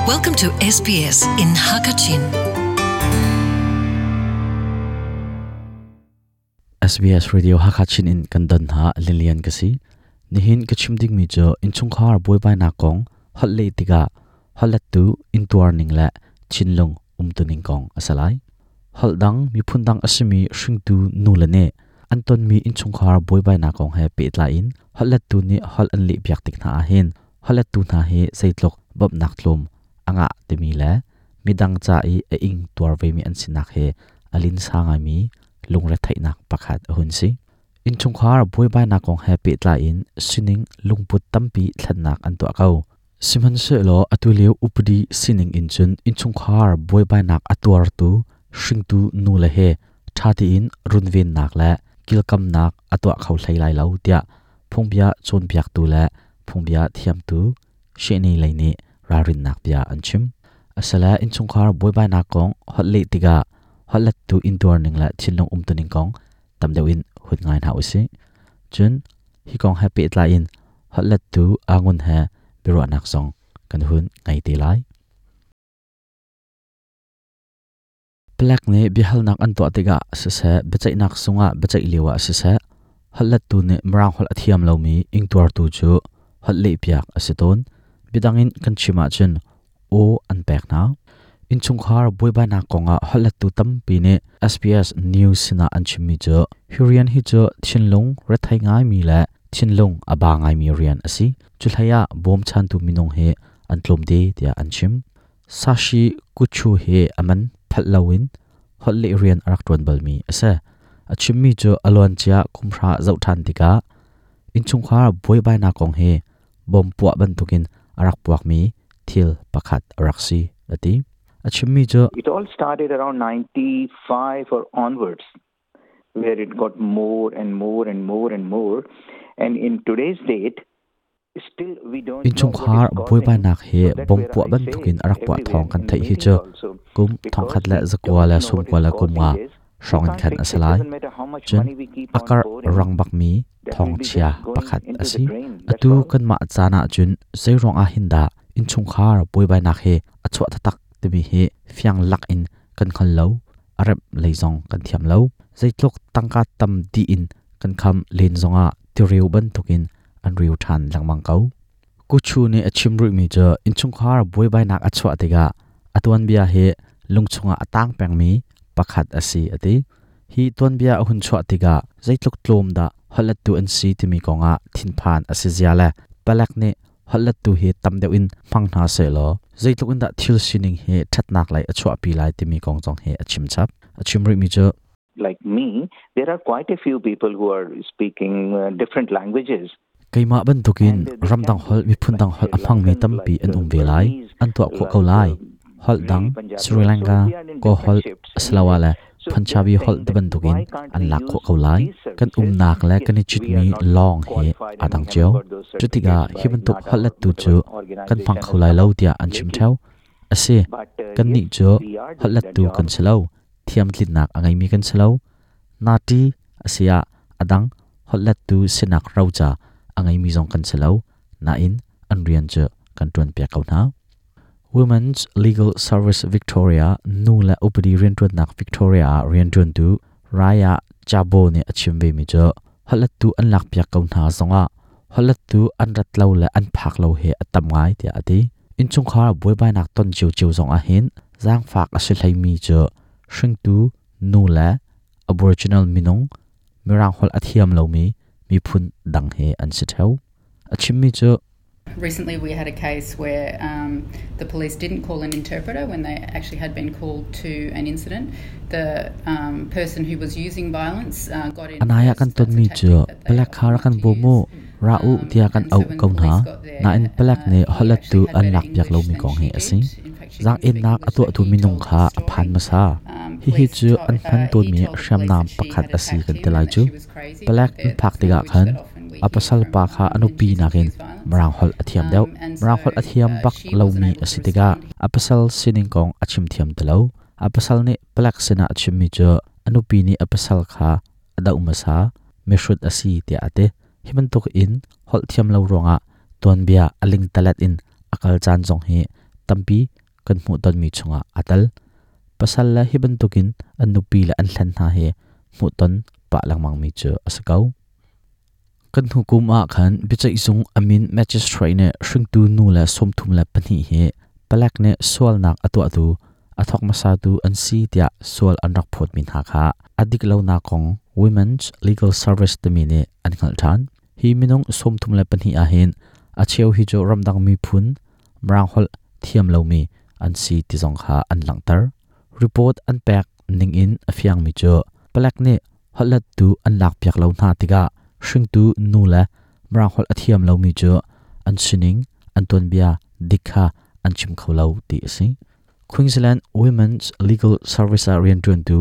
Welcome to SBS in Hakachin. SBS Radio Hakachin in kan don ha Lilian ka si. Nihin ka chim ding mi cu innchungkhar buaibainak kong holh leh tikah holhlettu intuar ning le thinlung umtuning kong a si lai. Holh dang miphun dang a simi hringtu nule nih an tonmi innchungkhar buaibainak kong he pehtlai in holhlettu nih holh an lehpiak tik hna ahhin holhlettu hna hi zeitluk bawmhnak tlawm a ngah timi le midang ca i a ing tuar vemi an sinak he a linsa ngaimi lungretheihnak pakhat a hun si. Innchungkhar buaibainak kong he pehtlai in sining lungput tampi thlennak an tuah ko. Sihmanhsehlaw atulio upadi sining in cun innchungkhar buaibainak a tuartu hringtu nule he ṭha tein runvennak le kilkamnak a tuah kho hlei lai lo tiah phungbia cawnpiaktu le phungbia thiamtu Shehni lei nih ralrinnak bia an chim. Asile innchungkhar buaibainak kong holh leh tikah holhlettu intuar ning le thinlung umtuning kong tam deuh in hun ngai hna usih. Cun hi kong he pehtlai in holhlettu Angun he biaruahnak zong kan hun ngei te lai. Palek nih biahalnak an tuah tikah siseh, biaceihnak zungah biaceih lio ah siseh, holhlettu nih Mirang holh a thiam lomi ingtuartu cu holh lehpiak a si tawn. Biadang in kan chim ahcun aw an pek hna. Innchungkhar buaibainak kongah holhlettu tampi nih SBS News sinah an chimmi cu hi rian hi cu thinlung rethei ngaimi le thinlung a ba ngaimi rian a si. Cu hlei ah bawmchantu minung hi an tlawmte tiah an chim. Sashi Kuchu hi a man phalh loin holh leh rian a rak ṭuan balmi a si. A chimmi cu a luancia kumhra zoh ṭhan tikah innchungkhar buaibainak kong hi bom puah bantukin a rak puakmi thil pakhat a rak si, a ti. A chimmi cu It all started around 95 or onwards, where it got more and more and more and more. And in today's date, Innchungkhar buaibainak hi bom puah bantukin a rak puah thawng kan theih hi cu kum 1995 hrawng in khan a si lai. Cun a karh rang bakmi thawngchia pakhat a si. Atu kanmah caan ahcun zeiruang ah hin dah innchungkhar buaibainak hi a chuah taktak timi hi fiang lak in kan hngal lo. A remh lei zong kan thiam lo. Zeitluk tangka tam dih in kan kham len zongah tireu bantukin an riu ṭhan lengmang ko. Kuchu nih a chim rihmi cu innchungkhar buaibainak a chuah tikah a tuanbia hi lungchung ah a tang pengmi pakhat a si a ti. Hi tuanbia a hun chuah tikah zeitluk tlawm dah holhlettu an si timi kongah thinphan a si zia le palek nih holhlettu hi tam deuh in hmang hna sehlaw zeitluk in dah thil sining hi ṭhatnak lei a chuahpi lai timi kong zong hi a chim chap. A chim rihmi cu like me, there are quite a few people who are speaking different languages. Keimah bantukin ramdang holh miphun dang holh a hmangmi tampi an um ve lai. An tuah khawh ko lai. Holh dang Sri Lanka, Kaw holh asiloah le Punjabi holh ti bantukin an lak khawh ko lai. Kan umnak le kan i citmi lawng hi aa dang cio. Cutikah hi bantuk holhlettu cu kan hmang kho lai lo tiah an chim ṭheo. A si, kannih cu holhlettu kan si lo. Thiamtlinnak a ngeimi kan si lo. Nati a si ah a dang holhlettu sinak roca a ngeimi zong kan si lo. Nain an rian cu kan ṭuanpiak ko hna. Women's Legal Service Victoria nu le upadi rianṭuannak Victoria ah rianṭuantu Raya Jabo nih a chim vemi cu holhlettu an lakpiak ko hna zongah holhlettu an rat lo le an phak lo hi a tam ngai tiah a ti. Innchungkhar buaibainak ton ciocio zong ahhin zaangfak a si hleimi cu hringtu nu le Aboriginal minung Mirang holh a thiam lomi miphun dang he an si ṭheo. A chimmi cu Recently, we had a case where the police didn't call an interpreter when they actually had been called to an incident. The person who was using violence got in. Anai ah kan tonmi cu palek kha rak kan bawm u, ra u tiah kan auh ko hna. Nain palek nih holhlettu an lakpiak lomi kong hi a si. Zaang-ennak a tuahtu minung kha a phan hmasa. Hihi cu an hman tawnmi hriamnam pakhat a si kan ti lai cu. Palek an phak tikah khan a pasal pa kha a nupi nakin Mirang holh a thiam deuh. Mirang holh a thiam bak lomi a si tikah a pasal sining kong a chim thiam ti lo. A pasal nih palek sinah a chimmi cu a nupi nih a pasal kha a doh hmasa, mihrut a si tiah a ti. Hi bantuk in holh thiam lo ruangah tuanbia a lingtalet in a kal caan zong hi tampi. kan hmuh tonmi chungah aa tel. Pasal le hi bantukin an nupi le an hlen hna hi hmuhton pah lengmangmi cu a si ko. Kan hnu kum ah khan biaceihzung a min magistrate nih hringtu nu le 32 hi palek nih sualnak a tuahtu a thawk hmasatu an si tiah sual an rak phawtmi hna kha a dik lonak kong Women's Legal Service timi nih an hngalh ṭhan. Hi minung 32 ahhin a cheu hi cu ramdang miphun Mirang holh thiam lomi an si ti zong kha an langhter. Report an pek ningin a fiangmi cu palek nih holhlettu an lakpiak lo hna tikah hringtu nu le Mirang holh a thiam lomi cu an sining, an tuanbia dik kha an chim kho lo ti a si. Queensland Women's Legal Service ah rianṭuantu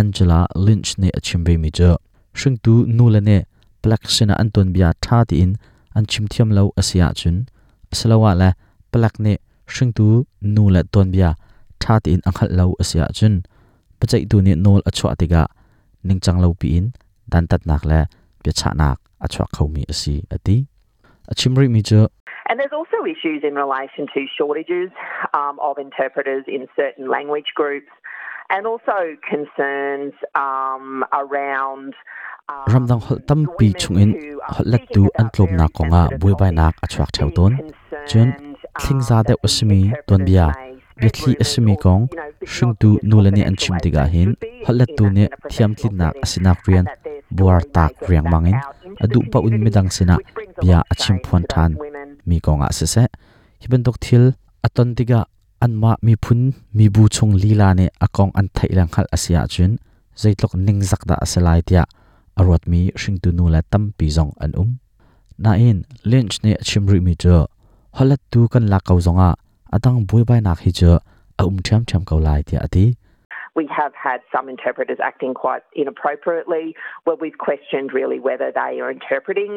Angela Lynch nih a chim vemi cu hringtu nule nih palek sinah an tuanbia ṭha tein an chim thiam lo a si ahcun asiloah le palek nih hringtu nu le tuanbia ṭha tein a hngalh lo a si ahcun biaceihtu nih nawl a chuah tikah ningcang lo piin dantatnak le biachahnak a chuak khomi a si a ti. A chim rihmi cu And there's also issues in relation to shortages of interpreters in certain language groups and also concerns around Ramdang holh tampi chungin holhlettu an tlawmnak kongah buaibainak a chuak ṭheo tawn. Cun thlingza deuh a simi tuanbia, biathli a simi kong hringtu nule nih an chim tikah hin holhlettu nih thiamtlinnak a sinak rian buar taak riangmang in a duh paoh in midang sinah bia a chimphuan ṭhan mi kongah siseh, hi bantuk thil a ton tikah anmah miphun mibu chung lila nih a kong an theih le hngalh a si ahcun zeitluk ningzak dah a si lai tiah a ruatmi hringtu nu le tampi zong an um. Nain Lynch nih a chim rihmi cu holhlettu kan lak ko zongah a dang buaibainak hi cu a um ṭhiamṭhiam ko lai tiah a ti. We have had some interpreters acting quite inappropriately where we've questioned really whether they are interpreting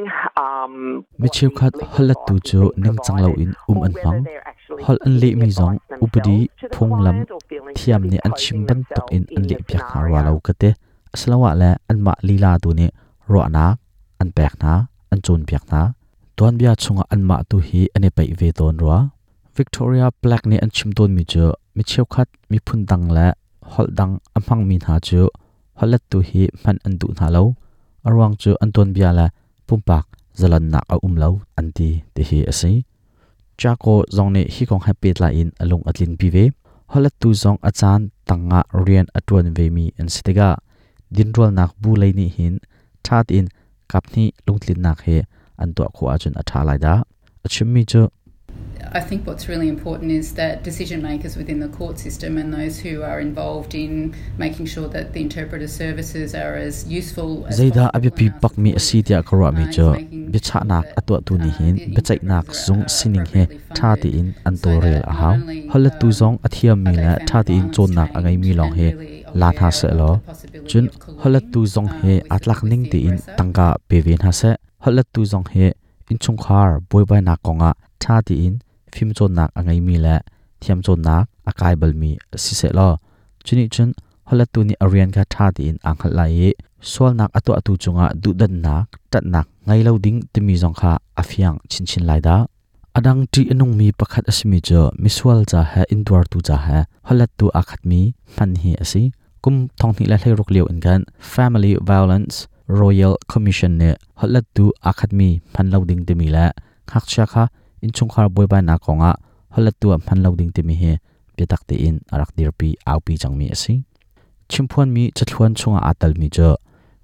Mi cheukhat holhlettu cu ningcang loin um an hmang. Holh an lehmi zong upadi phunglam thiam nih an chim bantuk in an lehpiak hna rua lo ka ti. Asiloah le anmah lila tu nih ruahnak an pek hna, an cawnpiak hna. Tuanbia chungah anmah tu hi an i peih ve tawn rua. Victoria Black nih an chim tawnmi cu mi cheukhat miphun dang le holh dang a hmangmi hna cu holhlettu hi hman an duh hna lo. A ruang cu an tuanbia le pumpak zalonnak a um lo an ti tihi a si. Chaco zong nih hi kong he pehtlai in a lung a tlinpi ve. Holhlettu zong a caan tangah rian a ṭuan vemi an si tikah dinrualnak bu lei nih hin ṭha tein kaphnih lungtlinnak he an tuah khawh ahcun a ṭha lai dah. A chimmi cu I think what's really important is that decision makers within the court system and those who are involved in making sure that the interpreter services are as useful as Zeidah a biapi bakmi a si tiah ka ruahmi cu biachahnak a tuahtu nih hin biaceihnak zung sining he ṭha tein an tawlrel a hau. Holhlettu zong a thiammi le ṭha tein cawnnak a ngeimi lawng hi la hna sehlaw cun holhlettu zong hi aa tlak ning tein tangka pe ve hna seh. Holhlettu zong hi innchungkhar buaibainak kongah ṭha tein fimcawnnak a ngeimi le thiamcawnnak a kai balmi si sehlaw cunih cun holhlettu nih a rian kha ṭha tein aa hngalh lai i sualnak a tuahtu cungah duhdanhnak, ṭanhnak ngei lo ding timi zong kha a fiang chinchin lai dah. A dang ṭih a nungmi pakhat a simi cu misual ca he intuartu ca he holhlettu aa khatmi hman hi a si. Kum 2016 lio in khan Family Violence Royal Commission nih holhlettu aa khatmi hman lo ding timi le ngakchia kha innchungkhar buaibainak kongah holhlettu ah hman lo ding timi hi biatak tein a rak dirpi aupi cangmi a si. Chimphuanmi cathluan chungah aa telmi cu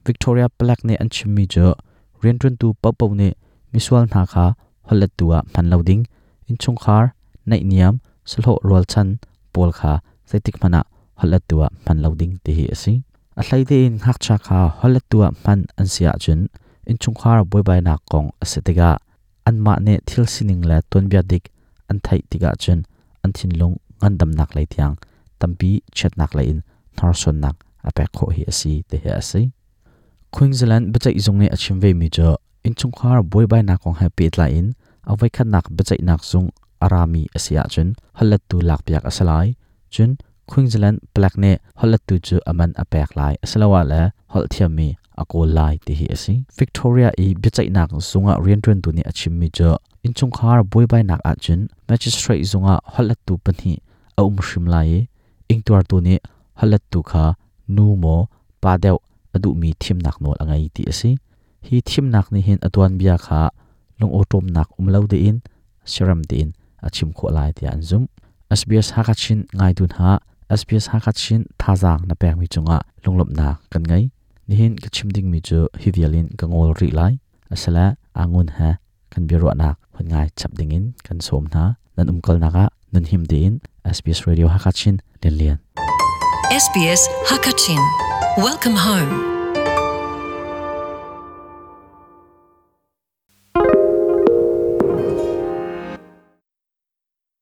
Victoria Palek nih an chimmi cu rianṭuantu paohpaoh nih misual hna kha holhlettu ah hman lo ding, innchungkhar, naihniam, sahlawh rualchan pawl kha zeitik hmanh ah holhlettu ah hman lo ding ti hi a si. A hlei tein ngakchia kha holhlettu ah hman an si ahcun innchungkhar buaibainak kong a si tikah anmah nih thil sining le tuanbia dik an theih tikah cun an thinlung ngandamnak lei tiang tampi chiatnak lei in hnorsuannak a pek khawh hi a si ti hi a si. Queensland biaceihzung nih a chim vemi cu innchungkhar buaibainak kong he pehtlai in a voikhatnak biaceihnak zung a rami a si ahcun holhlettu lakpiak a si lai. Cun Queensland palek nih holhlettu cu a man a pek lai asiloah le holh thiammi a kawl lai ti hi a si. Victoria i biaceihnak zung ah rianṭuantu nih a chimmi cu innchungkhar buaibainak ahcun magistrate zung ah holhlettu pahnih a um hrim lai i ingtuartu nih holhlettu kha nu maw pa deuh a duhmi thimnak nawl a ngei ti a si. Hi thimnak nih hin a tuanbia kha lungawṭawmnak um lo tein siarem tein a chim khawh lai tiah an zumh. SBS Hakachin ngaitu hna, SBS Hakachin thazaang na pekmi cungah lunglawmhnak kan ngei. Nihin ka chim dingmi cu hi vial in ka ngol rih lai. Asile angun he kan biaruahnak hun ngai chap dingin kan sawm hna. Nan umkalnak ah nan him tein SBS Radio Hakachin Lianlian. SBS Hakachin. Welcome home.